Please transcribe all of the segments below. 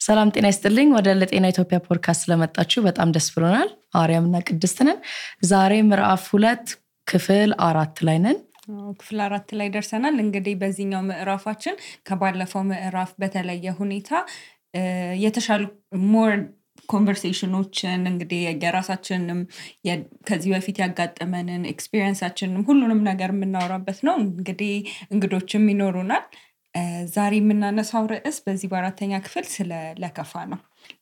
ሰላም ጤና ይስጥልኝ ወደ ለጤና ኢትዮጵያ ፖድካስት ስለመጣችሁ በጣም ደስ ብሎናል። አርያምና ቅድስት ነን። ዛሬ ምዕራፍ 2 ክፍል 4 ላይ ነን። ክፍል 4 ላይ ደርሰናል። እንግዲህ በዚህኛው ምዕራፋችን ከባለፈው ምዕራፍ በተለየ ሁኔታ የተሻሉ ሞር ኮንቨርሴሽኖችን እንግዲህ የራሳችንንም ከዚህ በፊት ያጋጠመንን ኤክስፒሪየንሳችንን ሁሉንም ነገር የምናወራበት ነው። እንግዲህ እንግዶችም ይኖሩናል። ዛሬ የምናነሳው ርዕስ በዚህ በአራተኛ ክፍል ስለ ለከፋ ነው።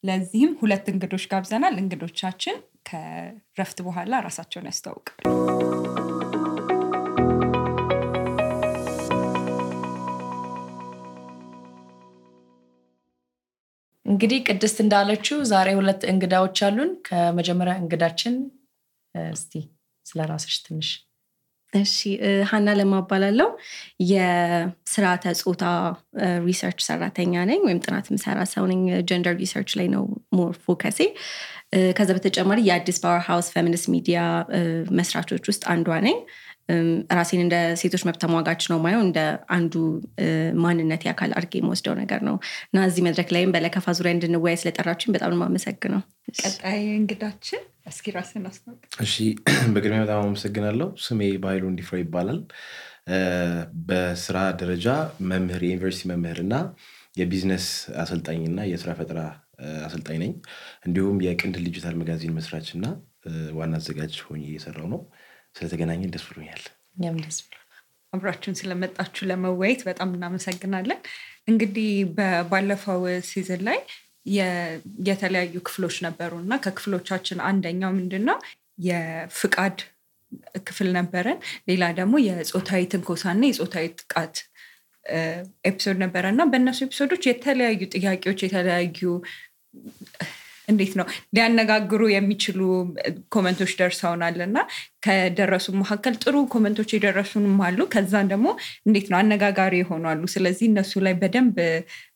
ለዚህም 2 እንግዶች ጋብዘናል። እንግዶቻችን ከረፍት በኋላ ራሳቸውን ያስተዋውቃሉ። እንግዲህ ቅድስት እንዳለችው ዛሬ 2 እንግዳዎች አሉን። ከመጀመሪያ እንግዳችን እስቲ ስለራስሽ ትንሽ እሺ ሃና ለማባላለው የስርዓተ ጾታ ሪሰርች ሰራተኛ ነኝ ወይም ጥናት ምሰራ ሰው ነኝ። ጀንደር ሪሰርች ላይ ነው ሞር ፎከሴ። ከዛ በተጨማሪ የአዲስ ፓወር ሃውስ ፌሚኒስት ሚዲያ መስራቾች ውስጥ አንዷ ነኝ። ራሴን እንደ ሴቶች መብት ተሟጋች ነው ማየው፣ እንደ አንዱ ማንነት ያካል አድርጌ የምወስደው ነገር ነው እና እዚህ መድረክ ላይም በለከፋ ዙሪያ እንድንወያይ ስለጠራችሁኝ በጣም ነው የማመሰግነው። ቀጣይ እንግዳችን እስኪ ራስህን አስተዋውቅ። እሺ በቅድሚያ በጣም አመሰግናለሁ። ስሜ ባይሉ እንዲፍራ ይባላል። በስራ ደረጃ መምህር፣ የዩኒቨርሲቲ መምህርና የቢዝነስ አሰልጣኝና የስራ ፈጠራ አሰልጣኝ ነኝ። እንዲሁም የቅንድል ዲጂታል መጋዚን መስራችና ዋና አዘጋጅ ሆኜ እየሰራው ነው። ስለተገናኘን ደስ ብሎኛል። እኛም ደስ ብሎናል። አብራችሁን ስለመጣችሁ ለመወያየት በጣም እናመሰግናለን። እንግዲህ ባለፈው ሲዝን ላይ የተለያዩ ክፍሎች ነበሩና ከክፍሎቻችን አንደኛው ምንድነው የፍቃድ ክፍል ነበረን። ሌላ ደግሞ የጾታዊ ትንኮሳና የጾታዊ ጥቃት ኤፒሶድ ነበረና በእነሱ ኤፒሶዶች የተለያዩ ጥያቄዎች የተለያዩ እንዴት ነው ሊያነጋግሩ የሚችሉ ኮሜንቶች ደርሰውናልና ከደረሱ መካከል ጥሩ ኮሜንቶች የደረሱንም አሉ። ከዛን ደግሞ እንዴት ነው አነጋጋሪ ይሆናሉ። ስለዚህ እነሱ ላይ በደንብ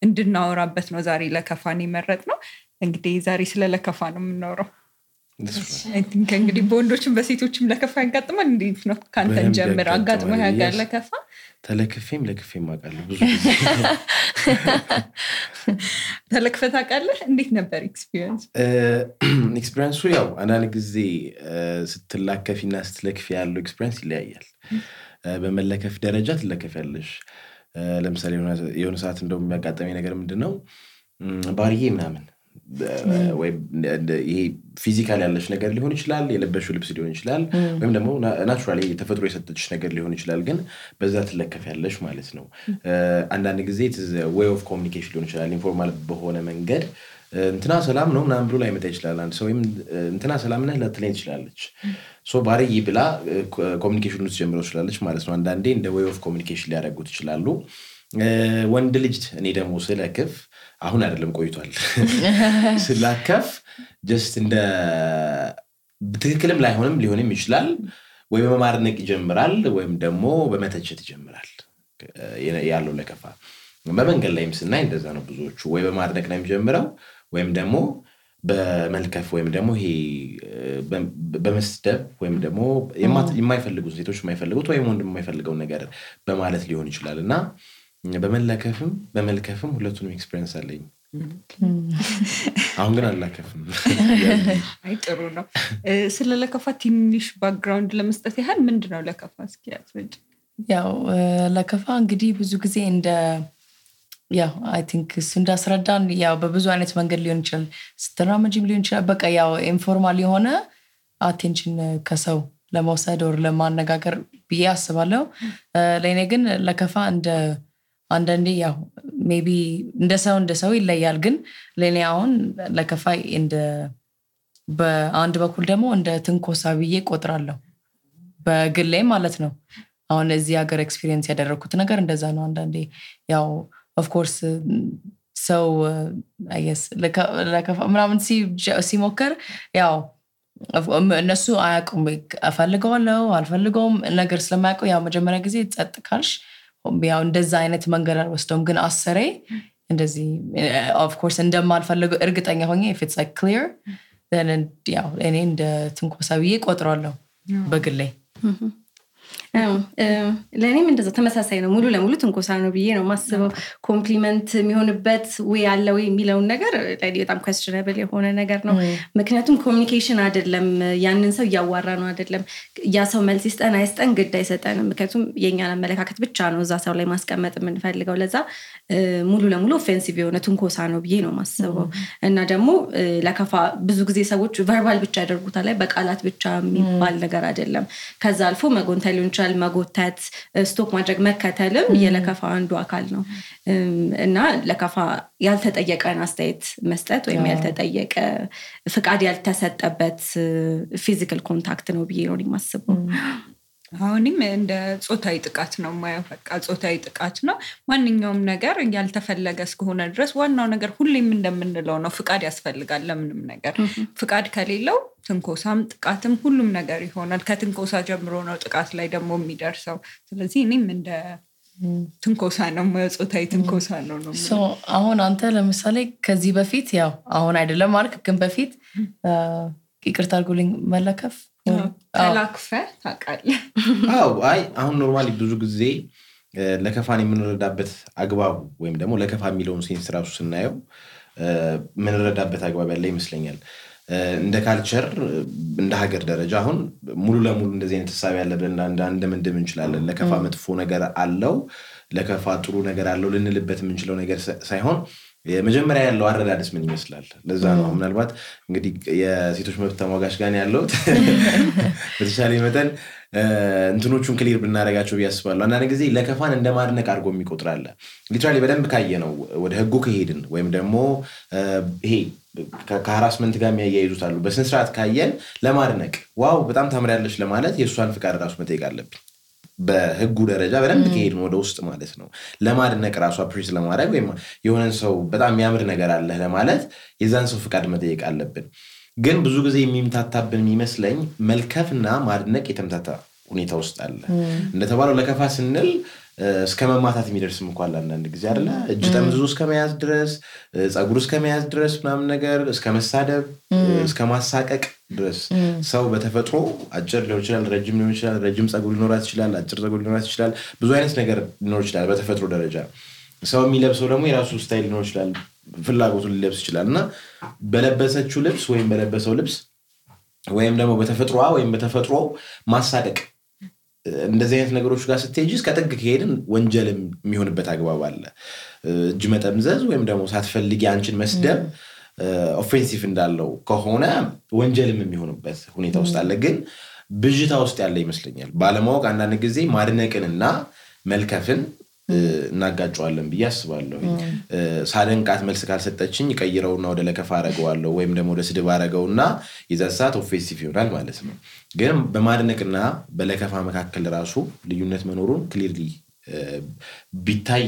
እንድናወራበት ነው ዛሬ ለከፋን የመረጥነው። እንግዲህ ዛሬ ስለ ለከፋ ነው የምናወራው። እንግዲህ በወንዶችም በሴቶችም ለከፋ ያጋጥማል። እንዴት ነው ካንተን ጀምር አጋጥሞ ያጋል ለከፋ? ተለክፌም ለክፌም አውቃለሁ። ብዙ ተለክፈት አውቃለህ? እንዴት ነበር ኤክስፒሪየንስ? ኤክስፒሪየንሱ ያው አንዳንድ ጊዜ ስትላከፊና ስትለክፊ ያለው ኤክስፒሪየንስ ይለያያል። በመለከፍ ደረጃ ትለከፊያለሽ። ለምሳሌ የሆነ ሰዓት እንደው የሚያጋጥመኝ ነገር ምንድነው ባሪዬ ምናምን ወይ ይሄ ፊዚካል ያለሽ ነገር ሊሆን ይችላል፣ የለበሽው ልብስ ሊሆን ይችላል፣ ወይም ደግሞ ናቹራሊ ተፈጥሮ የሰጠችሽ ነገር ሊሆን ይችላል። ግን በዛ ትለከፊያለሽ ማለት ነው። አንዳንድ ጊዜ way of communication ሊሆን ይችላል። ኢንፎርማል በሆነ መንገድ እንትና ሰላም ነው ምናምን ብሎ ላይመጣ ይችላል። አንድ ሰው ወይም እንትና ሰላም ነህ ልትለኝ ትችላለች። ሶ ባሪዬ ብላ ኮሚኒኬሽን ውስጥ ጀምሮ ትችላለች ማለት ነው። አንዳንዴ እንደ way of communication ሊያደርጉት ይችላሉ። ወንድ ልጅ እኔ ደግሞ ስለከፍ አሁን አይደለም ቆይቷል ስላከፍ just እንደ በትክክልም ላይሆንም ሊሆንም ይችላል። ወይ በማድነቅ ይጀምራል ወይም ደግሞ በመተቸት ይጀምራል ያለው ለከፋ። በመንገድ ላይም ስናይ እንደዛ ነው። ብዙዎቹ ወይ በማድነቅ ነው የሚጀምረው ወይም ደግሞ በመልከፍ ወይም ደግሞ ይሄ በመስደብ ወይም ደግሞ የማይፈልጉት ሴቶች የማይፈልጉት ወይም ወንድ የማይፈልገው ነገር በማለት ሊሆን ይችላልና በመለከፍም በመልከፍም ሁለቱንም ኤክስፒሪየንስ አለኝ። አሁን ግን አላከፍም። አይ ጥሩ ነው። ስለ ለከፋ ትንሽ ባክግራውንድ ለመስጠት ያህል ምንድነው ለከፋ እስኪ ያስረጅ። ያው ለከፋ እንግዲህ ብዙ ጊዜ እንደ ያው አይ ቲንክ እሱ እንዳስረዳን ያው በብዙ አይነት መንገድ ሊሆን ይችላል። ስትራመጂም ሊሆን ይችላል። በቃ ያው ኢንፎርማል የሆነ አቴንሽን ከሰው ለመውሰድ ወር ለማነጋገር ብዬ አስባለሁ። ለኔ ግን ለከፋ እንደ አንዳንዴ ያው ሜቢ እንደ ሰው ይለያል። ግን ለኔ አሁን ለከፋ እንደ በአንድ በኩል ደግሞ እንደ ትንኮሳ ብዬ ቆጥራለሁ በግሌ ማለት ነው። አሁን እዚህ ሀገር ኤክስፒሪየንስ ያደረኩት ነገር እንደዛ ነው። አንዳንዴ ያው ኦፍ ኮርስ ሰው አይ ጌስ ለከፋ ምናምን ሲሞከር ያው እነሱ አያውቁም እፈልገዋለሁ አልፈልገውም ነገር ስለማያውቁ ያው መጀመሪያ ጊዜ ጸጥ ካልሽ ያው እንደዛ አይነት መንገድ አልወስደውም። ግን አሰሬ እንደዚህ ኦፍ ኮርስ እንደማልፈልገው እርግጠኛ ሆኜ if it's like clear then ያው እኔ እንደ ትንኮሳ ብዬ ቆጥራለሁ በግሌ። ለእኔም እንደዛ ተመሳሳይ ነው ሙሉ ለሙሉ ትንኮሳ ነው ብዬ ነው ማስበው ኮምፕሊመንት የሚሆንበት ወይ ያለ ወይ የሚለውን ነገር ለኔ በጣም questionable የሆነ ነገር ነው ምክንያቱም ኮሚኒኬሽን አይደለም ያንን ሰው ያዋራ ነው አይደለም ያ ሰው መልስ ይስጠን አይስጠን ግድ አይሰጠንም ምክንያቱም የኛን አመለካከት ብቻ ነው እዛ ሰው ላይ ማስቀመጥ የምንፈልገው ለዛ ሙሉ ለሙሉ ኦፌንሲቭ የሆነ ትንኮሳ ነው ብዬ ነው ማስበው እና ደግሞ ለከፋ ብዙ ጊዜ ሰዎች ቨርባል ብቻ ያደርጉታል ላይ በቃላት ብቻ የሚባል ነገር አይደለም ከዛ አልፎ መጎንተል ሊሆን ይችላል መጎተት ስቶክ ማድረግ መከተልም የለከፋ አንዱ አካል ነው እና ለከፋ ያልተጠየቀን አስተያየት መስጠት ወይም ያልተጠየቀ ፍቃድ ያልተሰጠበት ፊዚካል ኮንታክት ነው ብዬ ነው የማስበው አሁንም እንደ ጾታዊ ጥቃት ነው ማየው በቃ ጾታዊ ጥቃት ነው ማንኛውም ነገር ያልተፈለገ እስከሆነ ድረስ ዋናው ነገር ሁሌም እንደምንለው ነው ፍቃድ ያስፈልጋል ለምንም ነገር ፍቃድ ከሌለው ትንኮሳም ጥቃትም ሁሉም ነገር ይሆናል ከትንኮሳ ጀምሮ ነው ጥቃት ላይ ደግሞ የሚደርሰው ስለዚህ እኔም እንደ ትንኮሳ ነው ጾታዊ ትንኮሳ ነው አሁን አንተ ለምሳሌ ከዚህ በፊት ያው አሁን አይደለም ማለት ግን በፊት ይቅርታ አድርጉልኝ መለከፍ ተላክፈ ታውቃለህ አይ አሁን ኖርማሊ ብዙ ጊዜ ለከፋን የምንረዳበት አግባቡ ወይም ደግሞ ለከፋ የሚለውን ሴንስ ራሱ ስናየው የምንረዳበት አግባብ ያለ ይመስለኛል እንደ ካልቸር እንደ ሀገር ደረጃ አሁን ሙሉ ለሙሉ እንደዚህ አይነት ሐሳብ ያለብን እንደምንድም እንችላለን ለከፋ መጥፎ ነገር አለው ለከፋ ጥሩ ነገር አለው ልንልበት የምንችለው ነገር ሳይሆን የመጀመሪያ ያለው አረዳድስ ምን ይመስላል ለዛ ነው ምናልባት እንግዲህ የሴቶች መብት ተሟጋች ጋር ያለው በተሻለ መጠን እንትኖቹን ክሊር ብናረጋቸው ያስባሉ አንዳንድ ጊዜ ለከፋን እንደማድነቅ አድርጎ የሚቆጥራል ሊትራሊ በደንብ ካየነው ወደ ህጉ ከሄድን ወይም ደግሞ ይሄ ከሃራስመንት ጋር የሚያያይዙት አሉ በስነ ስርዓት ካየን ለማድነቅ ዋው በጣም ታምሪያለሽ ለማለት የሷን ፍቃድ ራሱ መጠየቅ አለብን በህጉ ደረጃ በደንብ ከሄድን ወደ ውስጥ ማለት ነው ለማድነቅ ራሱ አፕሪሺየት ለማድረግ ወይም የሆነን ሰው በጣም የሚያምር ነገር አለ ለማለት የዛን ሰው ፍቃድ መጠየቅ አለብን ግን ብዙ ጊዜ የሚምታታብን የሚመስለኝ መልከፍና ማድነቅ የተምታታ ሁኔታ ውስጥ አለ እንደተባለው ለከፋ ስንል እስከ መማታት የሚደርስም እንኳን አንዳንድ ጊዜ አይደለ እጅ ጠምዝዞ እስከ መያዝ ድረስ ጸጉር እስከ መያዝ ድረስ ምናምን ነገር እስከ መሳደብ እስከ ማሳቀቅ ድረስ ሰው በተፈጥሮ አጭር ሊሆን ይችላል ረጅም ሊሆን ይችላል ረጅም ጸጉር ሊኖራት ይችላል አጭር ጸጉር ሊኖራት ይችላል ብዙ አይነት ነገር ሊኖር ይችላል በተፈጥሮ ደረጃ ሰው የሚለብሰው ደግሞ የራሱ ስታይል ሊኖር ይችላል ፍላጎቱን ሊለብስ ይችላልና በለበሰችው ልብስ ወይም በለበሰው ልብስ ወይም ደግሞ በተፈጥሮዋ ወይም በተፈጥሮ ማሳደቅ እንደዚህ አይነት ነገሮች ጋር ስትሄጂ እስከ ጥግ ከሄድን ወንጀል የሚሆንበት አግባብ አለ እጅ መጠምዘዝ ወይም ደግሞ ሳትፈልጊ አንቺን መስደብ ኦፌንሲቭ እንዳለው ከሆነ ወንጀልም የሚሆንበት ሁኔታ ውስጥ አለ ግን ብዥታ ውስጥ ያለ ይመስለኛል ባለማወቅ አንዳንድ ጊዜ ማድነቅንና መልከፍን እናጋጫዋለን ብዬ አስባለሁ ሳደንቃት መልስ ካልሰጠችኝ ቀይረውና ወደ ለከፋ አረጋዋለሁ ወይም ደግሞ ወደ ስድብ አረጋውና ይዘሳት ኦፌንሲቭ ይሆናል ማለት ነው ግን በማድነቅና በለከፋ መካከል ራሱ ልዩነት መኖሩን ክሊርሊ ቢታይ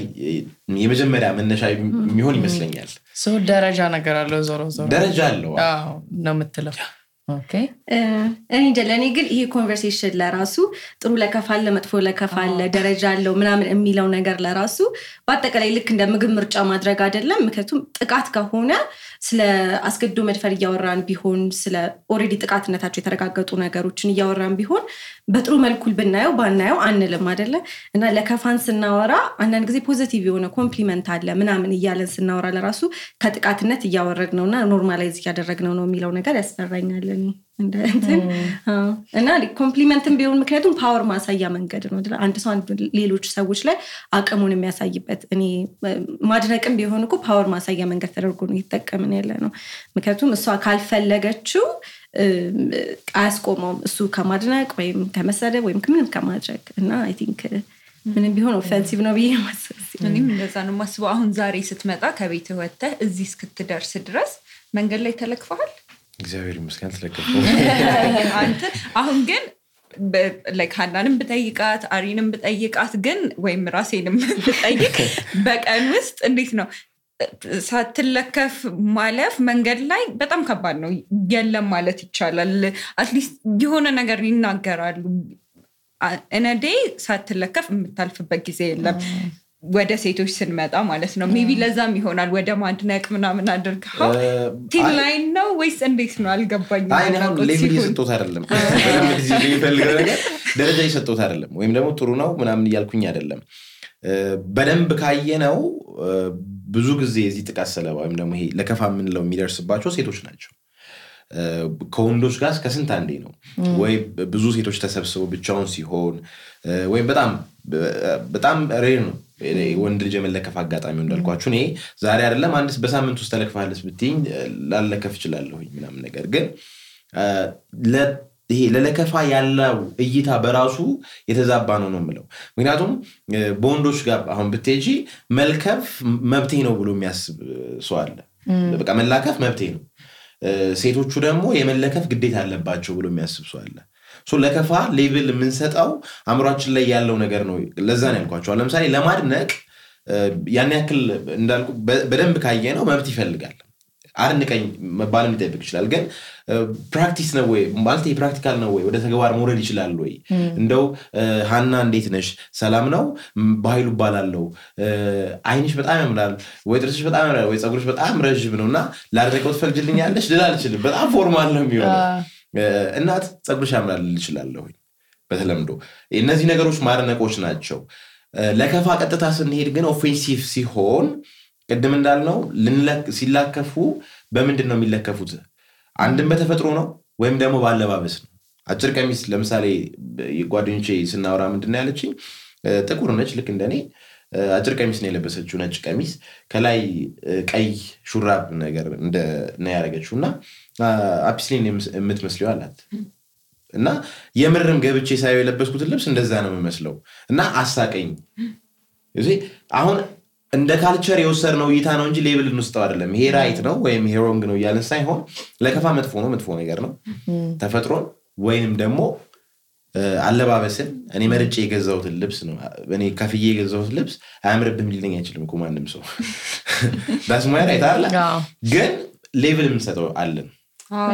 የመጀመሪያ መነሻ የሚሆን ይመስለኛል ሰው ደረጃ ነገር አለው ዞሮ ደረጃ አለው አዎ ነው የምትለው ኦኬ እኔ ለኔ ግን ይሄ ኮንቨርሴሽን ለራሱ ጥሩ ለከፋለ መጥፎ ለከፋለ ደረጃ አለው ምናምን የሚለው ነገር ለራሱ በአጠቃላይ ልክ እንደ ምግብ ምርጫ ማድረግ አይደለም ምክንያቱም ጥቃት ከሆነ ስለ አስገድዶ መድፈር እያወራን ቢሆን ስለ ኦሬዲ ጥቃትነታቸው የተረጋገጡ ነገሮችን እያወራን ቢሆን በጥሩ መልኩ ብናየው ባናየው አንልም አይደለ እና ለከፋን ስናወራ አንዳንድ ጊዜ ፖዚቲቭ የሆነ ኮምፕሊመንት አለ ምናምን እያለን ስናወራ ለራሱ ከጥቃትነት እያወረድነውና ኖርማላይዝ እያደረግነው ነው የሚለው ነገር ያስፈራኛል እና ኮምፕሊመንትም ቢሆን ምክንያቱም ፓወር ማሳያ መንገድ ነው አንድ ሰው ሌሎች ሰዎች ላይ አቅሙን የሚያሳይበት እኔ ማድነቅም ቢሆን እኮ ፓወር ማሳያ መንገድ ተደርጎ ነው እየተጠቀምን ያለ ነው ምክንያቱም እሷ ካልፈለገችው አያስቆመውም እሱ ከማድነቅ ወይም ከመሰደብ ወይም ምንም ከማድረግ እና አይ ቲንክ ምንም ቢሆን ኦፌንሲቭ ነው ብዬ ማስበው እኔም እንደዛ ነው ማስበው አሁን ዛሬ ስትመጣ ከቤት ወጥተህ እዚህ እስክትደርስ ድረስ መንገድ ላይ ተለክፈሃል እግዚአብሔር ይመስገን ተለከፈው አንተ አሁን ግን like ሃናንም ብጠይቃት አሪንም ብጠይቃት ግን ወይም ራሴንም ብጠይቅ በቀን ውስጥ እንዴት ነው ሳትለከፍ ማለፍ መንገድ ላይ በጣም ከባድ ነው የለም ማለት ይቻላል አትሊስት የሆነ ነገር ይናገራሉ እነዴ ሳትለከፍ የምታልፍበት ጊዜ የለም ወደ ሴቶች ስንመጣ ማለት ነው ሜቢ ለዛም ይሆናል ወደ ማድነቅ ምናምን አድርገው ቲም ላይን ነው ወይስ እንዴት ነው አልገባኝም አይ ነው ሌቭል ይስጦት አይደለም በደንብ ጊዜ ይፈልጋል ነገር ደረጃ ይሰጠውት አይደለም ወይም ደግሞ ጥሩ ነው ምናምን እያልኩኝ አይደለም በደንብ ካየነው ብዙ ጊዜ እዚህ ጥቃት ሰለባ ወይም ደግሞ ይሄ ለከፋ ምንለው የሚደርስባቸው ሴቶች ናቸው ከወንዶች ጋር ከስንት አንዴ ነው ወይ ብዙ ሴቶች ተሰብስበው ብቻውን ሲሆን ወይ በጣም ሬር ነው ወንድ ልጅ የመለከፍ አጋጣሚው እንዳልኳችሁ እኔ ዛሬ አይደለም አንድስ በሳምንት ውስጥ ተለክፋለስ ብትኝ ላለከፍ ይችላልሁኝ ምናምን ነገር ግን ይሄ ለለከፋ ያለው እይታ በራሱ የተዛባ ነው የምለው ምክንያቱም በወንዶች ጋር አሁን ብትጂ መልከፍ መብቴ ነው ብሎ የሚያስብ ሰው አለ በቃ መላከፍ መብቴ ነው ሴቶቹ ደግሞ የመለከፍ ግዴታ አለባቸው ብሎ የሚያስብ ሰው አለ ለከፋ ሌቭል የምንሰጣው አምሯችን ላይ ያለው ነገር ነው ለዛ ነው ያልኳችሁ ለምሳሌ ለማድነቅ ያን ያክል እንዳልኩ በደንብ ካየነው መብት ይፈልጋል አርንቀኝ መባልን ይጠብቅ ይችላል ግን ፕራክቲስ ነው ወይ ማለት ፕራክቲካል ነው ወይ ወደ ተግባር መውረድ ይችላል ወይ እንደው ሃና እንዴት ነሽ ሰላም ነው ባይሉ ባላለው አይንሽ በጣም ያምራል ወይ ጥርስሽ በጣም ያምራል ወይ ጸጉርሽ በጣም ረጅም ነውና ላደረቀው ትፈልጅልኛለሽ ልላልችልም በጣም ፎርማል ነው የሚሆነው እናት ጸጉርሽ ያምራል ልችላለሁ በተለምዶ እነዚህ ነገሮች ማድነቆች ናቸው ለከፋ ቀጥታ ስንሄድ ግን ኦፌንሲቭ ሲሆን ቀደም እንዳልነው ሲላከፉ በምንድነው የሚለከፉት አንድም በተፈጥሮ ነው ወይም ደግሞ ባለባበስ ነው አጭር ቀሚስ ለምሳሌ የጓደኞቼ ስናወራ ምንድነው ያለችኝ ጥቁር ነች ልክ እንደኔ አጭር ቀሚስ ነው የለበሰችው ነጭ ቀሚስ ከላይ ቀይ ሹራብ ነገር ነው ያረጋችውና አፕስሊን የምትመስለው አላት እና የምርም ገብቼ ሳይው የለበስኩት ልብስ እንደዛ ነው የሚመስለው እና አሳቀኝ እዚህ አሁን እንደ ካልቸር የወሰድነው እይታ ነው እንጂ ሌብል እንውስጠው አይደለም ይሄ ራይት ነው ወይም ይሄ ሮንግ ነው ያለን ሳይሆን ለከፋ መጥፎ ነገር ነው ተፈጥሮን ወይንም ደግሞ አለባበስን እኔ መርጬ የገዛሁት ልብስ ነው እኔ ከፍዬ የገዛሁት ልብስ አያምርብም ሊለኝ አይችልም እኮ ማንም ሰው ዳስማይ ራይት አለ ግን ሌቭል እንሰጠው አለን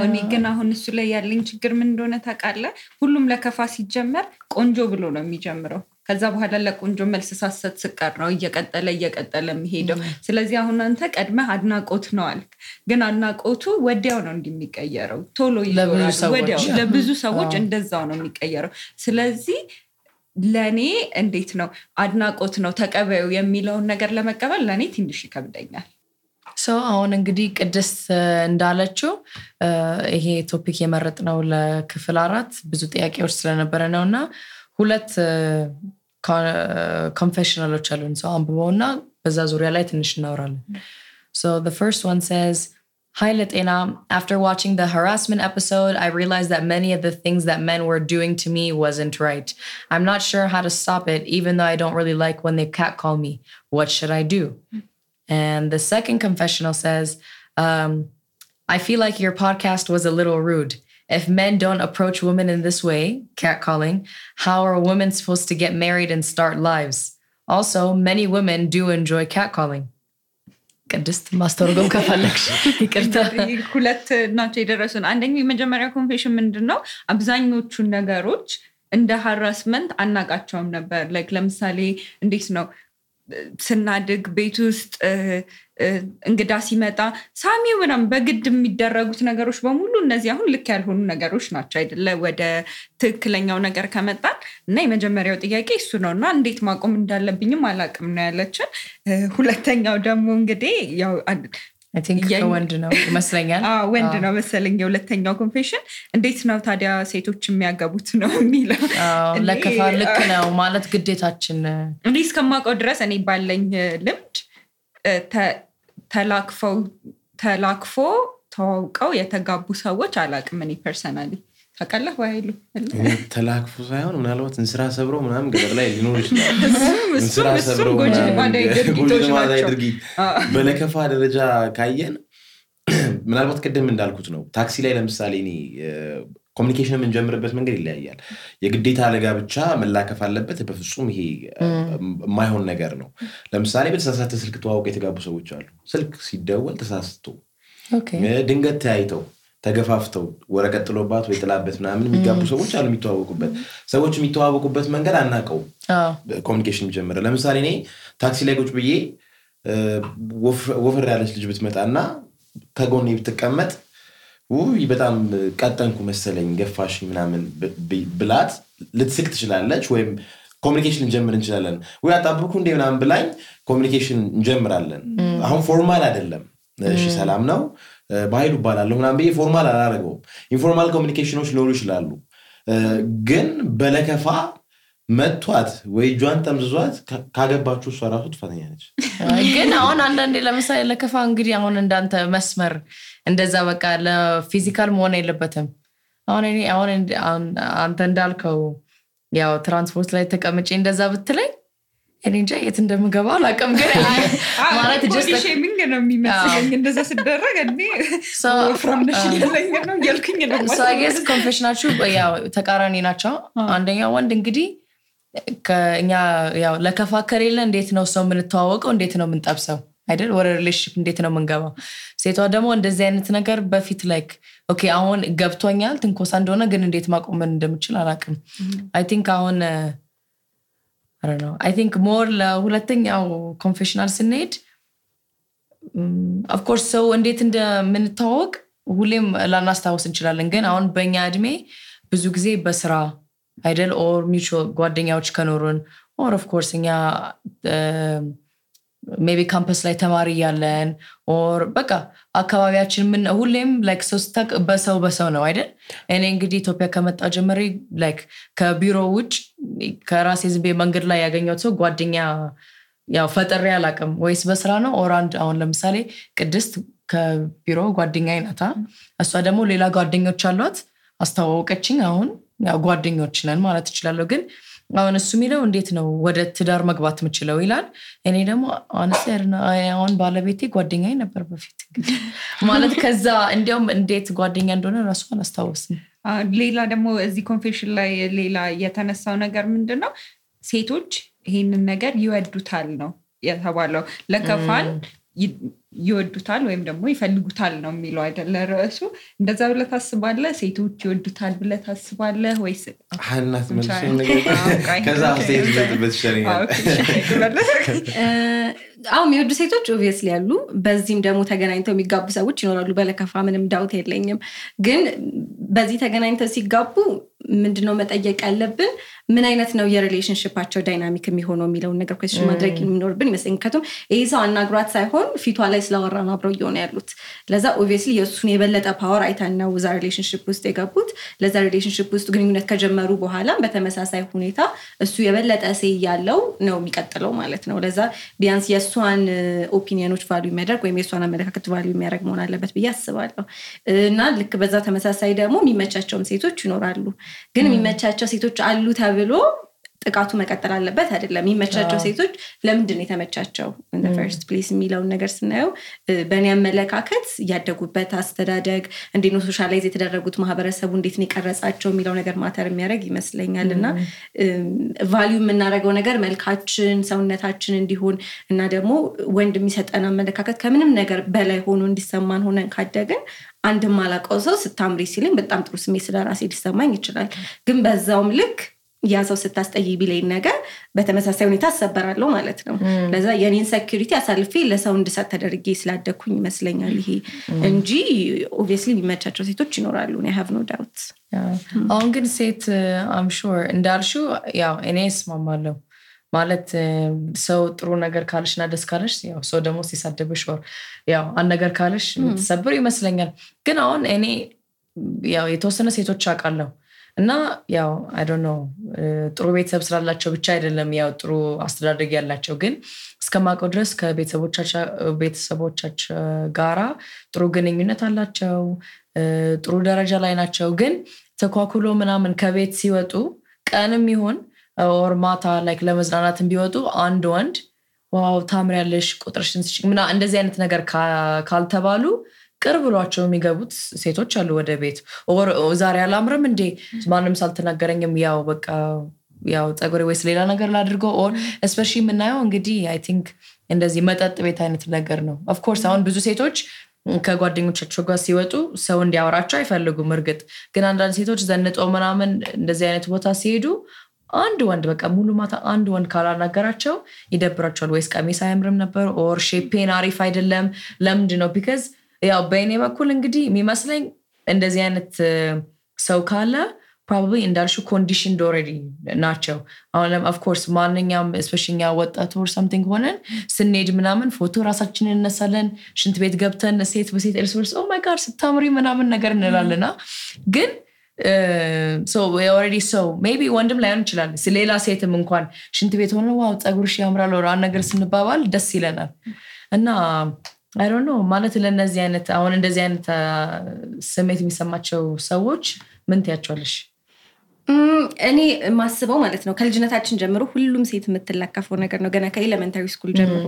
እኔ ግን አሁን እሱ ላይ ያለኝ ችግር ምን እንደሆነ ታውቃለህ ሁሉም ለከፋ ሲጀመር ቆንጆ ብሎ ነው የሚጀምረው ከዛ በኋላ ለቆንጆ መልስ ሳሰት ስቀር ነው እየቀጠለ የሚሄደው ስለዚህ አሁን አንተ ቀድመህ አድናቆት ነው አልክ ግን አድናቆቱ ወዲያው ነው እንደሚቀየረው ቶሎ ይዞራል ወዲያው ለብዙ ሰዎች እንደዛው ነው የሚቀየረው ስለዚህ ለኔ እንዴት ነው አድናቆት ነው ተቀበዩ የሚለውን ነገር ለመቀበል ለኔ ትንሽ ይከብደኛል አሁን እንግዲህ ቅድስት እንዳለችው ይሄ ቶፒክ የመረጥነው ለክፍል 4 ብዙ ጥያቄዎች ስለነበረ ነውና ሁለት confessionaloች አሉን አንብበውና በዛ ዙሪያ ላይ ትንሽ እናወራለን so the first one says Hi Latena, after watching the harassment episode, I realized that many of the things that men were doing to me wasn't right. I'm not sure how to stop it, even though I don't really like when they catcall me. What should I do? And the second confessional says, I feel like your podcast was a little rude. If men don't approach women in this way, catcalling, how are women supposed to get married and start lives? Also, many women do enjoy catcalling. ቅድስት ማስተርጎም ከፈለግሽ ይቅርታ ሁለት ናቸው የደረሱን አንደኛው የመጀመሪያ ኮንፌሽን ምንድነው አብዛኞቹ ነገሮች እንደ ሃራስመንት አናቃቸውም ነበር ላይክ ለምሳሌ እንዴት ነው ስናድግ ቤት ውስጥ እንግዳ ሲመጣ ሳሚው ምናም በግድ የሚደረጉት ነገሮች በሙሉ እነዚህ አሁን ልክ ያልሆኑ ነገሮች ናቸው አይደለ ወደ ትክክለኛው ነገር ከመጣን እና የመጀመሪያው ጥያቄ እሱ ነውና እንዴት ማቆም እንዳለብኝም አላቅም ነው ያለችን ሁለተኛው ደግሞ እንግዲህ ያው I think ወንድ ነው መስለኛል ወንድ ነው መሰለኝ የሁለተኛው ኮንፌሽን እንዴት ነው ታዲያ ሴቶች የሚያገቡት ነው የሚለው ለከፋ ልክ ነው ማለት ግዴታችን እንዴ እስከማውቀው ድረስ እኔ ባለኝ ልምድ ተላክፎ ተዋውቀው የተጋቡ ሰዎች አላቅም እኔ ፐርሰናሊ ታውቃለህ ወይሉ ተላክፎ ሳይሆን ምናልባት እንስራ ሰብሮ ምናምን ገደል ላይ ሊኖር ይችላል እንስራ ሰብሮ ጎጂ ማዳይ ድርጊት በለከፋ ደረጃ ካየን ምናልባት ቀደም እንዳልኩት ነው ታክሲ ላይ ለምሳሌ እኔ ኮሙኒኬሽን የምንጀምርበት መንገድ ይለያያል የግዴታ ለጋብቻ መላከፍ አለበት በፍጹም ይሄ የማይሆን ነገር ነው ለምሳሌ በተሳሳተ ስልክ ተዋውቀው የተጋቡ ሰዎች አሉ ስልክ ሲደወል ተሳስቶ ድንገት ተያይተው ተገፋፍተው ወረቀት ጥሎባት ወይ ጥላበት ምናምን የሚጋቡ ሰዎች አሉ የሚተዋወቁበት መንገድ አናቀው ኮሙኒኬሽን ጀመረ ለምሳሌ እኔ ታክሲ ላይ ቁጭ ብዬ ወፈር ያለች ልጅ ብትመጣና ከጎኔ ብትቀመጥ በጣም ቀጠንኩ መሰለኝ ገፋሽ ምናምን ብላት ልትስቅ ትችላለች ወይም ኮሚኒኬሽን እንጀምር እንችላለን ወይ አጣብቁ እንደ ምናምን ብላኝ ኮሚኒኬሽን እንጀምራለን አሁን ፎርማል አይደለም እሺ ሰላም ነው ባይሉ ባላለው ምናምን በየ ፎርማል አላረገውም ኢንፎርማል ኮሚኒኬሽኖች ሊኖሩ ይችላሉ ግን በለከፋ መጥቷት ወይ ጇን ተምዝዟት ካገባችሁ እሷ ራሱ ጥፋተኛ ነች ግን አሁን አንዳንዴ ለምሳሌ ለከፋ እንግዲህ አሁን እንዳንተ መስመር እንደዛ በቃ ለፊዚካል መሆን የለበትም አሁን አንተ እንዳልከው ያው ትራንስፖርት ላይ ተቀምጬ እንደዛ ብትለኝ እኔ እንጃ የት እንደምገባ አላውቅም ግን ማለት just shaming ነው የሚመስለኝ እንደዛ ሲደረግ እንዴ from the shilling ነው ያልኩኝ ነው so I guess confessionችሁ ያው ተቃራኒ ናቸው አንደኛው ወንድ እንግዲህ ከኛ ያው ለከፋ ከሌለ እንዴት ነው ሰው ምን ተዋወቀው እንዴት ነው ምን ጠብሰው አይደል ወደ ሪሌሽንሺፕ እንዴት ነው መንገባው ሴቷ ደግሞ እንደዚህ አይነት ነገር በፊት ላይክ ኦኬ አሁን ገብቶኛል ትንኮሳ እንደሆነ ግን እንዴት ማቆም እንደምችል አላውቅም I think አሁን I don't know I think more ለሁለተኛው ኮንፌሽናል ስንሄድ of course so እንዴት እንደምንተዋወቅ ሁሌም ላናስታውስ እንችላለን ግን አሁን በእኛ እድሜ ብዙ ጊዜ በስራ አይደል or mutual ጓደኛዎች ከኖሩን or of course እኛ maybe campus ላይ ተማሪ ያለን or በቃ አካባቢያችን ምን ሁሌም like ሶስታክ በሰው ነው አይደል እኔ እንግዲህ ኢትዮጵያ ከመጣ ጀመረ like ከቢሮ ውጭ ከራሴ ዝም መንገድ ላይ ያገኘው ሰው ጓደኛ ያው ፈጠሪ ያላቀም ወይስ በስራ ነው or አሁን ለምሳሌ ቅድስት ከቢሮ ጓደኛዬ ናታ እሷ ደግሞ ሌላ ጓደኞች አሏት አስተዋወቀችኝ አሁን ያው ጓደኞች ነን ማለት ይችላል ግን አሁን እሱ የሚለው እንዴት ነው ወደ ትዳር መግባት የምችለው ይላል እኔ ደግሞ አሁን ባለቤቴ ጓደኛዬ ነበር በፊት ማለት ከዛ እንዲያውም እንዴት ጓደኛ እንደሆነ ራሱ አላስታውስም ሌላ ደግሞ እዚህ ኮንፌሽን ላይ ሌላ የተነሳው ነገር ምንድነው ሴቶች ይሄንን ነገር ይወዱታል ነው የተባለው ለከፋን ይወዱታል ወይም ደግሞ ይፈልጉታል ነው የሚለው አይደለ ራሱ እንደዛ ብለህ ታስባለህ ሴቶች ይወዱታል ብለህ ታስባለህ ወይስ ሐናት መልሽኝ ነገር ከዛ ሴት በትሸሪያ የሚወዱ ሴቶች obviously ያሉ በዚህም ደግሞ ተገናኝተው የሚጋቡ ሰዎች ይኖራሉ በለከፋ ምንም ዳውት የለኝም ግን በዚህ ተገናኝተው ሲጋቡ ምንድነው መጠየቅ ያለብን ምን አይነት ነው የሪሌሽንሺፓቸው ዳይናሚክ የሚሆነው የሚለውን ነገር question ማድረግ የሚኖርብን ይመስለኛል ከቶም ይሄ ሰው አናግሯት ሳይሆን ፊቷ ላይ ስለወራና አብረው ይሆነ ያሉት ለዛ obviously የሱን የበለጠ ፓወር አይታናው ዛ ሪሌሽንሺፕ ውስጥ የገቡት ለዛ ሪሌሽንሺፕ ውስጥ ግንኙነት ከጀመሩ በኋላ በተመሳሳይ ሁኔታ እሱ የበለጠ ሰይ ያለው ነው የሚቀጥለው ማለት ነው ለዛ ቢያንስ የሷን ኦፒኒዮኖች ቫልዩ የሚያደርግ ወይም የሷን አመለካከት ቫልዩ የሚያደርግ መሆን አለበት ብዬ አስባለሁ እና ልክ በዛ ተመሳሳይ ደግሞ የሚመቻቸውም ሴቶች ይኖራሉ ግን የሚመቻቸው ሴቶች አሉ ተብሎ ጥቃቱ መቀጠል አለበት አይደለም የሚመቻቸው ሴቶች ለምንድን ነው የተመቻቸው in the first place የሚለውን ነገር ስናየው በእኔ አመለካከት ያደጉበት አስተዳደግ እንዴት ነው ሶሻላይዝ የተደረጉት ማህበረሰቡ እንዴት ነው የቀረጻቸው የሚለው ነገር ማተር የሚያደርግ ይመስለኛልና ቫልዩ የምናደርገው ነገር መልካችን ሰውነታችን እንዲሆን እና ደግሞ ወንድ የሚሰጠን አመለካከት ከምንም ነገር በላይ ሆኖ እንዲሰማን ሆነን ካደግን አንድ ማላቀው ሰው ስታምሪ ሲልኝ በጣም ጥሩ ስሜት ስለራሴ ሊሰማኝ ይችላል ግን በዛውም ልክ ያ ሰው ስታስጠይ ቢለኝ ነገር በተመሳሳይ ሁኔታ አሰበራለሁ ማለት ነው ለዛ የኔን ሴኩሪቲ አሳልፌ ለሰው እንድሰጥ ተደርጌ ስላደኩኝ ይመስለኛል ይሄ እንጂ obviously የሚመቻቸው ሴቶች ይኖራሉ I have no doubt አሁን ግን ሴት I'm sure እንዳልሽው ያው እኔ እስማማለሁ ማለት ሰው ጥሩ ነገር ካልሽና ደስ ካልሽ ያው ሰው ደግሞ ሲሳደብሽ ያው አንድ ነገር ካልሽ ተሰብር ይመስለኛል ግን አሁን እኔ ያው የተወሰነ ሴቶች አውቃለሁ እና ያው I don't know ጥሩ ቤተሰብ ስላላቸው ብቻ አይደለም ያው ጥሩ አስተዳደግ ያላቸው ግን እስከማውቀው ድረስ ከቤተሰቦቻቸው ጋራ ጥሩ ግንኙነት አላቸው ጥሩ ደረጃ ላይ ናቸው ግን ተኳኩሎ ምናምን ከቤት ሲወጡ ቀንም ይሁን or ማታ like ለመዝናናትም ቢወጡ አንድ ወንድ ዋው ታምሪያለሽ ቁጥርሽን ምና እንደዚህ አይነት ነገር ካልተባሉ ቅርብ ብሏቸው የሚገቡት ሴቶች አሉ ወደ ቤት or ዛሬ አላምርም እንዴ ማንንም ሳልተናገረኝም ያው በቃ ያው ጸጉሬ ወይስ ሌላ ነገር ላድርገው or especially ምናየው እንግዲህ I think እንደዚህ መጠጥ ቤት አይነት ነገር ነው of course አሁን ብዙ ሴቶች ከጓደኞቻቸው ጋር ሲወጡ ሰው እንዲያወራቸው አይፈልጉም እርግጥ ግን አንዳንድ ሴቶች ዘንጠው ምናምን እንደዚህ አይነት ቦታ ሲሄዱ አንድ ወንድ በቃ ሙሉ ማታ አንድ ወንድ ካላናገራቸው ይደብራቸዋል ወይስ ቀሚስ አያምርም ነበር or ሼፔን አሪፍ አይደለም ለምንድን ነው because ያው በእኔ በኩል እንግዲህ የሚመስለኝ እንደዚህ አይነት ሰው ካለ probably እንዳልሽው conditioned already ናቸው አሁን of course ማንኛውም especially ወጣት or something ሆነን ስንሄድ ምናምን ፎቶ ራሳችንን እነሳለን ሽንት ቤት ገብተን ሴት በሴት እርስ oh my god ስታምሪ ምናምን ነገር እንላለና ግን so we already so maybe ወንድም ላይሆን ይችላል ስለሌላ ሴትም እንኳን ሽንት ቤት ሆነ ዋው ጸጉርሽ ያምራል ወራ ነገር ስንባባል ደስ ይለናል እና I don't know ማለት ለነዚህ አይነት አሁን እንደዚህ አይነት ስሜት የሚሰማቸው ሰዎች ምን ትያቸዋለሽ እኔ ማስበው ማለት ነው ከልጅነታችን ጀምሮ ሁሉም ሴት የምትለከፈው ነገር ነው ገና ከኤሌመንታሪ ስኩል ጀምሮ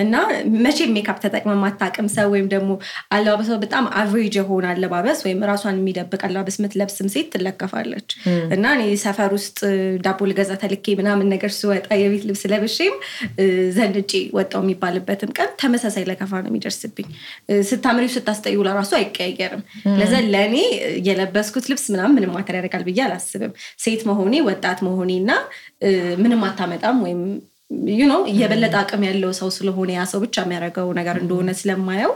እና መቼ ሜካፕ ተጠቅመ ማታቀም ሰው ወይም ደግሞ አለባበሷ በጣም አቨሬጅ የሆነ አለባበስ ወይም ራሷን የሚደብቅ አለባበስ ምትለብስም ሴት ትለከፋለች እና እኔ ሰፈር ውስጥ ዳቦ ልገዛ ተልኬ ምናምን ነገር ስወጣ የቤት ልብስ ለብሼም ዘንጬ ወጣው የሚባልበትም ቀን ተመሳሳይ ለከፋ ነው የሚደርስብኝ ስታምሪው ስታስጠዩ ለራሱ አይቀየርም ለዛ ለኔ የለበስኩት ልብስ ምንም ማተር ያደርጋል ብዬ አላስብም ሴት መሆኔ ወጣት መሆኔና ምንም አታመጣም ወይም you know የበለጠ አቅም ያለው ሰው ስለሆነ ያ ሰው ብቻ የሚያደርገው ነገር እንደሆነ ስለማየው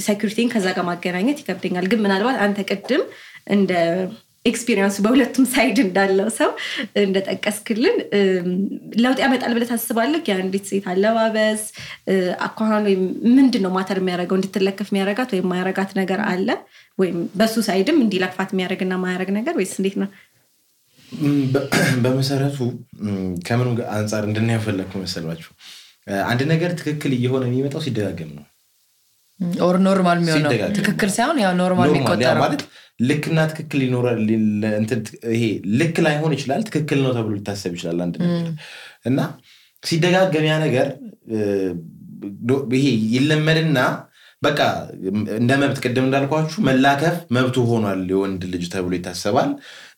ሴኩሪቲን ከዛ ጋር ማገናኘት ይከብደኛል ግን ምናልባት አንተ ቅድም እንደ ኤክስፒሪየንስ በሁለቱም ሳይድ እንዳለው ሰው እንደተጠቀስክልን ለውጥ ያመጣል ብለህ ታስባለህ የአንዲት ሴት አለባበስ አኳኋን ወይ ምንድነው ማተር የሚያደርገው እንድትለከፍ የሚያደርጋት ወይ የማያደርጋት ነገር አለ ወይ በሱ ሳይድም እንዲለክፋት የሚያደርግና ማያደርግ ነገር ወይስ እንዴት ነው በመሰረቱ ከምን አንፃር እንደናያፈለኩ መሰላችሁ አንድ ነገር ትክክል እየሆነ የሚመጣው ሲደጋገም ነው or normal የሚሆነው ትክክል ሳይሆን ያው ኖርማል የሚቆጠረው ማለት ልክና ትክክል ይኖራል እንትን ይሄ ልክ ላይ ሆነ ይችላል ትክክል ነው ተብሎ ሊታሰብ ይችላል አንድ ነገር እና ሲደጋገም ያ ነገር ይሄ ይለመድና በቃ እንደ መብት ቀደም እንዳልኳችሁ መላከፍ መብቱ ሆኗል የወንድ ልጅ ተብሎ ይታሰባል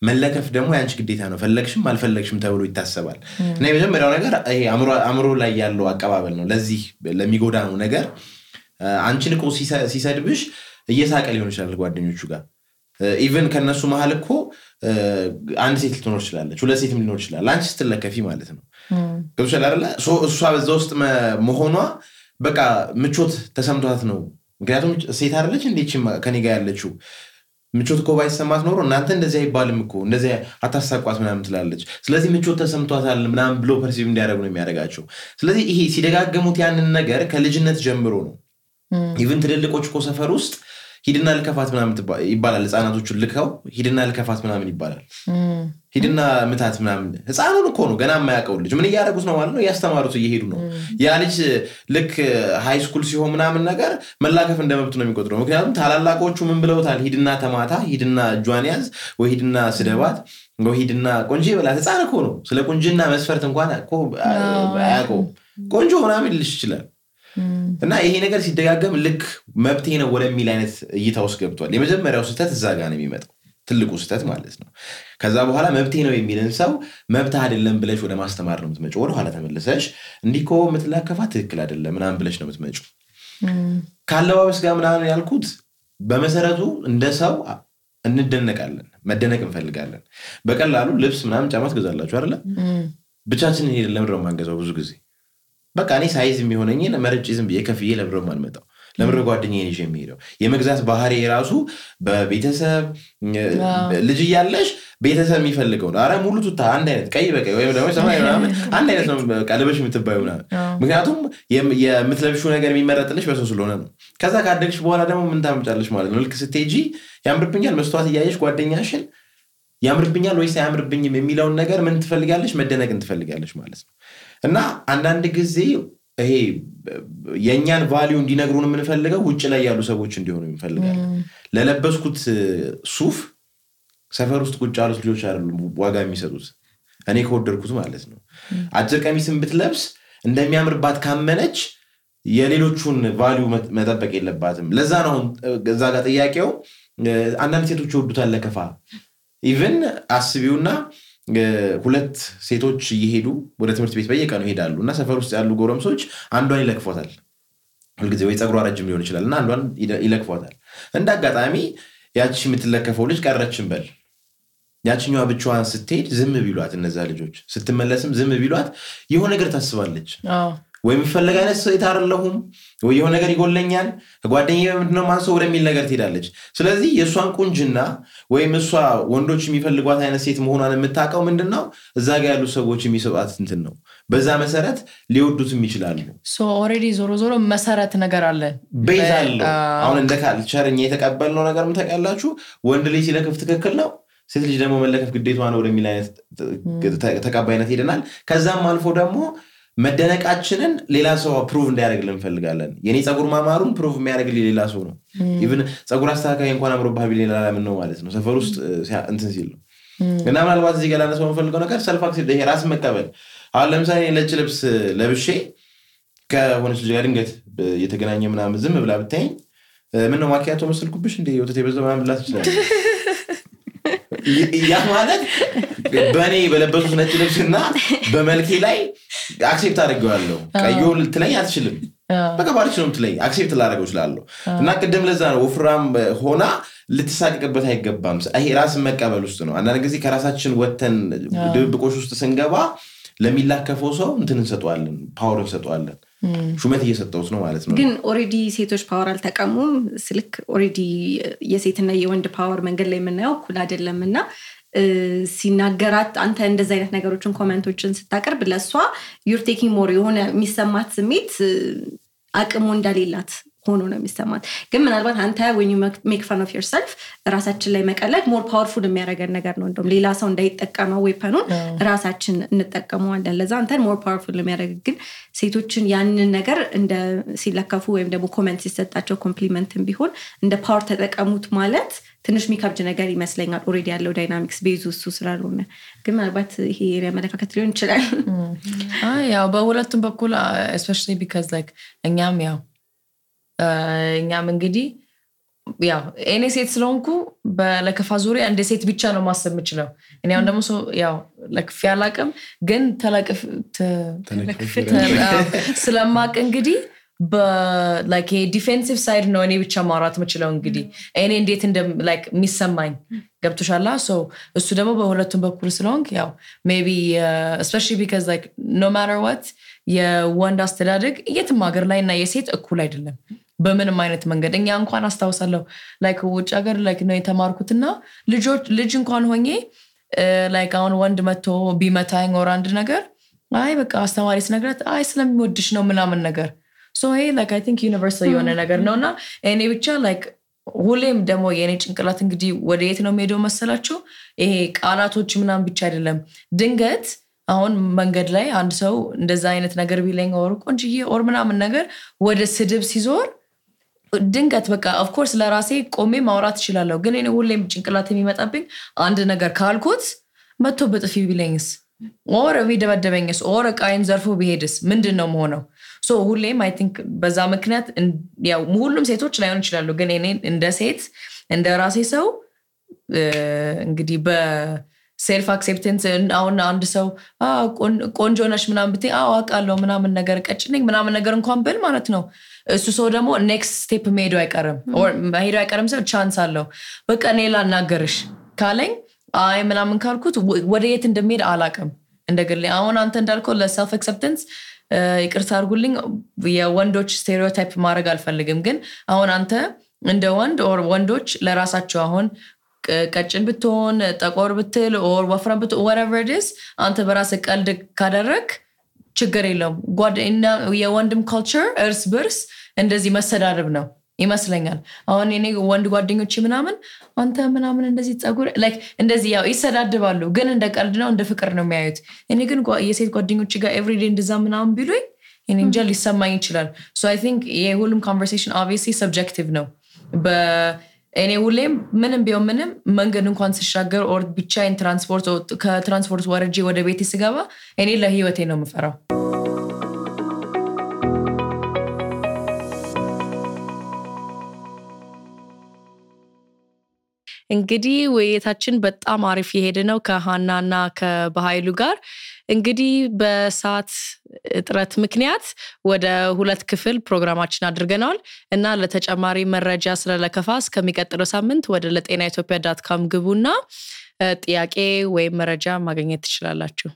መለከፍ ደግሞ ያንቺ ግዴታ ነው ፈለግሽም አልፈለግሽም ተብሎ ይታሰባል እና የመጀመሪያው ነገር ይሄ አምሮ ላይ ያለው አቀባበል ነው ለዚህ ለሚጎዳው ነገር አንቺን እኮ ሲሰድብሽ እየሳቀ ሊሆን ይችላል ጓደኞቹ ጋር ኢቭን ከነሱ መሃል እኮ አንድ ሴት ልትኖር ይችላል ሁለት ሴትም ሊኖር ይችላል አንቺ ስትለከፊ ማለት ነው ገብቶሻል አይደል እሷ በዛ ውስጥ መሆኗ በቃ ምቾት ተሰምቷት ነው ምክንያቱም ሴት አይደለች እንዴች ከኔ ጋር ያለችው ምቾት እኮ ባይሰማት ኖሮ እናንተ እንደዚህ አይባልም እኮ እንደዚህ አታሳቋት ምናምን ትላለች ስለዚህ ምቾት ተሰምቷታል ምናምን ብሎ ፐርሲቭ እንዲያደርጉ ነው የሚያደርጋቸው ስለዚህ ይሄ ሲደጋገሙት ያንን ነገር ከልጅነት ጀምሮ ነው ኢቭን ትልልቆች እኮ ሰፈር ውስጥ ሂድና ልከፋት ምናምን ይባላል ህፃናቶቹን ልከው ሂድና ልከፋት ምናምን ይባላል ሂድና ምታት ምናምን ህፃኑን እኮ ነው ገና የማያውቀው ልጅ ምን እያደረጉት ነው ማለት ነው ያስተማሩት እየሄዱ ነው ያ ልጅ ልክ ሃይ ስኩል ሲሆን ምናምን ነገር መላከፍ እንደመብት ነው የሚቆጥረው ምክንያቱም ታላላቆቹ ምን ብለውታል ሂድና ተማታ ሂድና ጇን ያዝ ወይ ሂድና ስደባት ወይ ሂድና ቆንጆ ይበላት ህፃን እኮ ነው ስለ ቆንጆና መስፈርት እንኳን እኮ አያውቀው ቆንጆ ምናምን ልጅ ይችላል እና ይሄ ነገር ሲደጋገም ልክ መብቴ ነው ወለሚል አይነት እይታ ውስጥ ገብቷል የመጀመሪያው ስህተት እዛ ጋር ነው የሚመጣው ትልቁ ስህተት ማለት ነው ከዛ በኋላ መብቴ ነው የሚልን ሰው መብት አይደለም ብለሽ ወደ ማስተማር ነው የምትመጪው ወደ ኋላ ተመለሰሽ እንዲኮ ምትላከፋ ትክክል አይደለም ምናምን ብለሽ ነው የምትመጪው ካለባበስ ጋር ምናምን ያልኩት በመሰረቱ እንደ ሰው እንደነቃለን መደነቅ እንፈልጋለን በቀላሉ ልብስ ምናምን ጫማ ትገዛላችሁ አይደል ብቻችንን ሄደን ለምድረው ማንገዛው ብዙ ጊዜ በቃ እኔ ሳይዝ የሚሆነኝን መርጬ ዝም ብዬ ከፍዬ ለምድረው ማልመጣው ለምድረው ጓደኛዬ ነሽ የሚሄደው የመግዛት ባህሪ ራሱ በቤተሰብ ልጅ ያለሽ ቤተሰብ የሚፈልገው ነው አረ ሙሉ ቱታ አንድ አይነት ቀይ በቀይ ወይ ደግሞ ሰማያዊ ምናምን አንድ አይነት ነው ቀለበሽ የምትባየው ምናምን ምክንያቱም የምትለብሹ ነገር የሚመረጥልሽ በሰው ስለሆነ ነው ከዛ ካደግሽ በኋላ ደግሞ ምን ታምጫለሽ ማለት ነው ልክ ስትሄጂ ያምርብኛል መስተዋት እያየሽ ጓደኛሽን ያምርብኛል ወይስ አያምርብኝም የሚለውን ነገር ምን ትፈልጋለሽ መደነቅን ትፈልጋለሽ ማለት ነው እና አንዳንድ ጊዜ ይሄ የኛን ቫልዩ እንዲነግሩን የምንፈልገው ውጭ ላይ ያሉ ሰዎች እንዲሆኑ እንፈልጋለን ለለበስኩት ሱፍ ሰፈር ውስጥ ቁጭ ያሉት ልጆች አይደሉም ዋጋ የሚሰጡት እኔ ከወደድኩት ማለት ነው አጭር ቀሚስን ብትለብስ እንደሚያምርባት ካመነች የሌሎቹን ቫልዩ መጠበቅ የለባትም ለዛ ነው እዛ ጋር ጥያቄው አንዳንድ ሴቶች ይወዱታል ለከፋ ኢቭን አስቢውና ሁለት ሴቶች ይሄዱ ወደ ትምህርት ቤት በየቀኑ ይሄዳሉ እና ሰፈር ውስጥ ያሉ ጎረምሶች አንዷን ይለክፏታል ሁልጊዜ ወይ ጸጉሯ ረጅም ሊሆን ይችላል እና አንዷን ይለክፏታል እንደ አጋጣሚ ያቺ የምትለከፈው ልጅ ቀረችም በል ያቺኛዋ ብቻዋን ስትሄድ ዝም ቢሏት እነዛ ልጆች ስትመለስም ዝም ቢሏት የሆነ ነገር ታስባለች ወይ የሚፈልግ አይነት ሴት አይደለሁም ወይ የሆነ ነገር ይጎለኛል ከጓደኛዬ ምንድነው ማንሰው ወደሚል ነገር ትሄዳለች ስለዚህ የሷን ቁንጅና ወይም እሷ ወንዶች የሚፈልጓት አይነት ሴት መሆኗን የምታውቀው ምንድነው እዛ ጋር ያሉ ሰዎች የሚሰጧት እንትን ነው በዛ መሰረት ሊወዱትም ይችላሉ ሶ ኦሬዲ ዞሮ መሰረት ነገር አለ ቤዝ አለው አሁን እንደ ካልቸርኛ የተቀበልነው ነገርም ተቀላችሁ ወንድ ልጅ ሲለከፍ ትክክል ነው ሴት ልጅ ደግሞ መለከፍ ግዴታዋ ነው ወደሚል አይነት ተቀባይነት ሄደናል ከዛም አልፎ ደግሞ መደነቃችንን ሌላ ሰው ፕሩቭ እንዲያደርግልን እንፈልጋለን የኔ ጸጉር ማማሩን ፕሩቭ የሚያደርግልኝ ሌላ ሰው ነው ኢቭን ጸጉር አስተካካይ እንኳን አምሮብህ ቢል ሌላ ለምን ነው ማለት ነው ሰፈር ውስጥ እንትን ሲል ነው እና ምናልባት እዚህ ጋር ላነሳው የምፈልገው ነገር ሰልፍ አክሴፕት ይሄ ራስ መቀበል አሁን ለምሳሌ ነጭ ልብስ ለብሼ ከሆነች ልጅ ጋር ድንገት የተገናኘ ምናምን ዝም ብላ ብታይኝ ምን ነው ማኪያቶ መስልኩብሽ እንዴ ወተት የበዛው ምናምን ብላ ትችላለች ያ ማለት በኔ በለበሱት ነጭ ልብስና በመልኬ ላይ አክሴፕት አድርገዋለሁ ቀዩ ልትለኝ አትችልም በቃ ባልሽ ነው ልትለኝ አክሴፕት ላደርገው እችላለሁ እና ቅድም ለዛ ነው ወፍራም ሆና ልትሳቀቅበት አይገባም ይሄ ራስ መቀበል ውስጥ ነው አንዳንድ ጊዜ ከራሳችን ወተን ድብቆሽ ውስጥ ስንገባ ለሚላከፈው ሰው እንትን እንሰጣለን ፓወር እንሰጣለን ሹመት እየሰጠውት ነው ማለት ነው ግን ኦሬዲ ሴቶች ፓወር አልተቀሙም ስልክ ኦሬዲ የሴትና የወንድ ፓወር መንገድ ላይ የምናየው ኩል አይደለምና ሲናገራት አንተ እንደዚህ አይነት ነገሮችን ኮሜንቶችን ስታቀርብ ለሷ you're taking more የሆነ የሚሰማት ስሜት አቅሙ እንደሌላት ሆኖ ነው የሚሰማት ግን ምናልባት አንተ when you make fun of yourself ራሳችን ላይ መቀለድ more powerful የሚያደርገን ነገር ነው እንደውም ሌላ ሰው እንዳይጠቀመው ዌፐኑን ራሳችን እንጠቀመዋለን ለዛ አንተ more powerful የሚያደርግ ግን ሴቶችን ያንን ነገር እንደ ሲለከፉ ወይም ደግሞ ኮሜንት ሲሰጣቸው ኮምፕሊመንትም ቢሆን እንደ ፓወር ተጠቀሙት ማለት ትንሽ የሚከብድ ነገር ይመስለኛል ኦሬዲ ያለው ዳይናሚክስ ቤዙ እሱ ስላልሆነ ግን ምናልባት ይሄ የመለካከት ሊሆን ይችላል ያው በሁለቱም በኩል especially because like እኛም እንግዲህ ያው እኔ ሴት ስለሆንኩ በለከፋ ዙሪያ እንደ ሴት ብቻ ነው ማሰብ የምችለው እኔ አሁን ደግሞ ያው ለክፍ ያላቀም ግን ተለክፍ ስለማቅ እንግዲህ like a defensive side ነው እኔ ብቻ ማውራት የምችለው እንግዲህ እኔ እንዴት እንደ like የሚሰማኝ ገብቶሻላ so እሱ ደግሞ በሁለቱም በኩል ስለሆንክ ያው maybe especially because like no matter what የወንድ አስተዳደግ የትም ሀገር ላይ እና የሴት እኩል አይደለም በምንም አይነት መንገድ እኛ እንኳን አስተዋውሳለሁ like ውጭ ሀገር like ነው የተማርኩትና ልጅ እንኳን ሆኜ like አሁን ወንድ መጥቶ ቢመታኝ or አንድ ነገር አይ በቃ አስተማሪ ስነግራት አይ ስለሚወድሽ ነው ምናምን ነገር so hey like I think universal የሆነ ነገር ነውና እኔ ብቻ like ሁሌም ደግሞ የኔ ጭንቅላት እንግዲህ ወደ የት ነው ሄዶ መሰላችሁ ይሄ ቃላቶች ምናምን ብቻ አይደለም ድንገት አሁን መንገድ ላይ አንድ ሰው እንደዛ አይነት ነገር ቢለኝ or ቆንጅዬ or ምናምን ነገር ወደ ስድብ ሲዞር ድንገት በቃ of course ለራሴ ቆሜ ማውራት እችላለሁ ግን እኔ ሁሌም ጭንቅላት የሚመጣብኝ አንድ ነገር ካልኩት መጥቶ በጥፊ ቢለኝስ or ቢደበደበኝስ or ቃይን ዘርፎ ቢሄድስ ምንድነው መሆነው so ሁሌም I think በዛ ምክንያት ያው ሁሉም ሴቶች ላይሆን ይችላሉ ግን እኔ እንደ ሴት እንደ ራሴ ሰው እንግዲህ በሴልፍ አክሴፕታንስ አሁን አንድ ሰው ቆንጆ ነሽ ምናምን ብትይ አውቃለሁ ምናምን ነገር ቀጭነኝ ምናምን ነገር እንኳን ብል ማለት ነው እሱ ሰው ደግሞ ኔክስት ስቴፕ መሄዱ አይቀርም or መሄዱ አይቀርም ሰው ቻንስ አለው በቃ እኔ ላናገርሽ ካለኝ አይ ምናምን ካልኩት ወደ የት እንደሚሄድ አላቀም እንደግል አሁን አንተ እንዳልከው ለሰልፍ አክሴፕታንስ ይቅርታ አድርጉልኝ የወንዶች ስቴሪዮታይፕ ማድረግ አልፈልግም ግን አሁን አንተ እንደ ወንድ or ወንዶች ለራሳቸው አሁን ቀጭን ብትሆን ጠቆር ብትል or ወፍራም ብትሆን whatever it is አንተ በራስህ ቀልድ ካደረክ ችግር የለውም ጓደኛ የወንድም ካልቸር እርስ በርስ እንደዚህ መሰዳደብ ነው ይመስለኛል አሁን እኔ ወንድ ጓደኞቼ ምናምን አንተ ምናምን እንደዚህ ጸጉር like እንደዚህ ያው ይሰዳደባሉ ግን እንደ ቀልድ ነው እንደ ፍቅር ነው የሚያዩት እኔ ግን የሴት ጓደኞቼ ጋር every day እንደዛ ምናምን ቢሉኝ እኔ እንጃ ሊሰማኝ ይችላል so I think የሁሉም conversation obviously subjective ነው እኔ ሁሌም ምንም ቢሆን ምንም መንገድ እንኳን ሲሻገር or ብቻዬን ከትራንስፖርት ወርጄ ወደ ቤቴ ስገባ እኔ ለህይወቴ ነው የምፈራው እንግዲህ ወይታችን በጣም አሪፍ የሄደ ነው ከሃናና ከበኃይሉ ጋር እንግዲህ በሰዓት እጥረት ምክንያት ወደ 2 ክፍል ፕሮግራማችን አድርገናል እና ለተጨማሪ መረጃ ስለለከፋ እስከሚቀጥለው ሳምንት ወደ letenaethiopia.com ግቡና ጥያቄ ወይ መረጃ ማግኘት ትችላላችሁ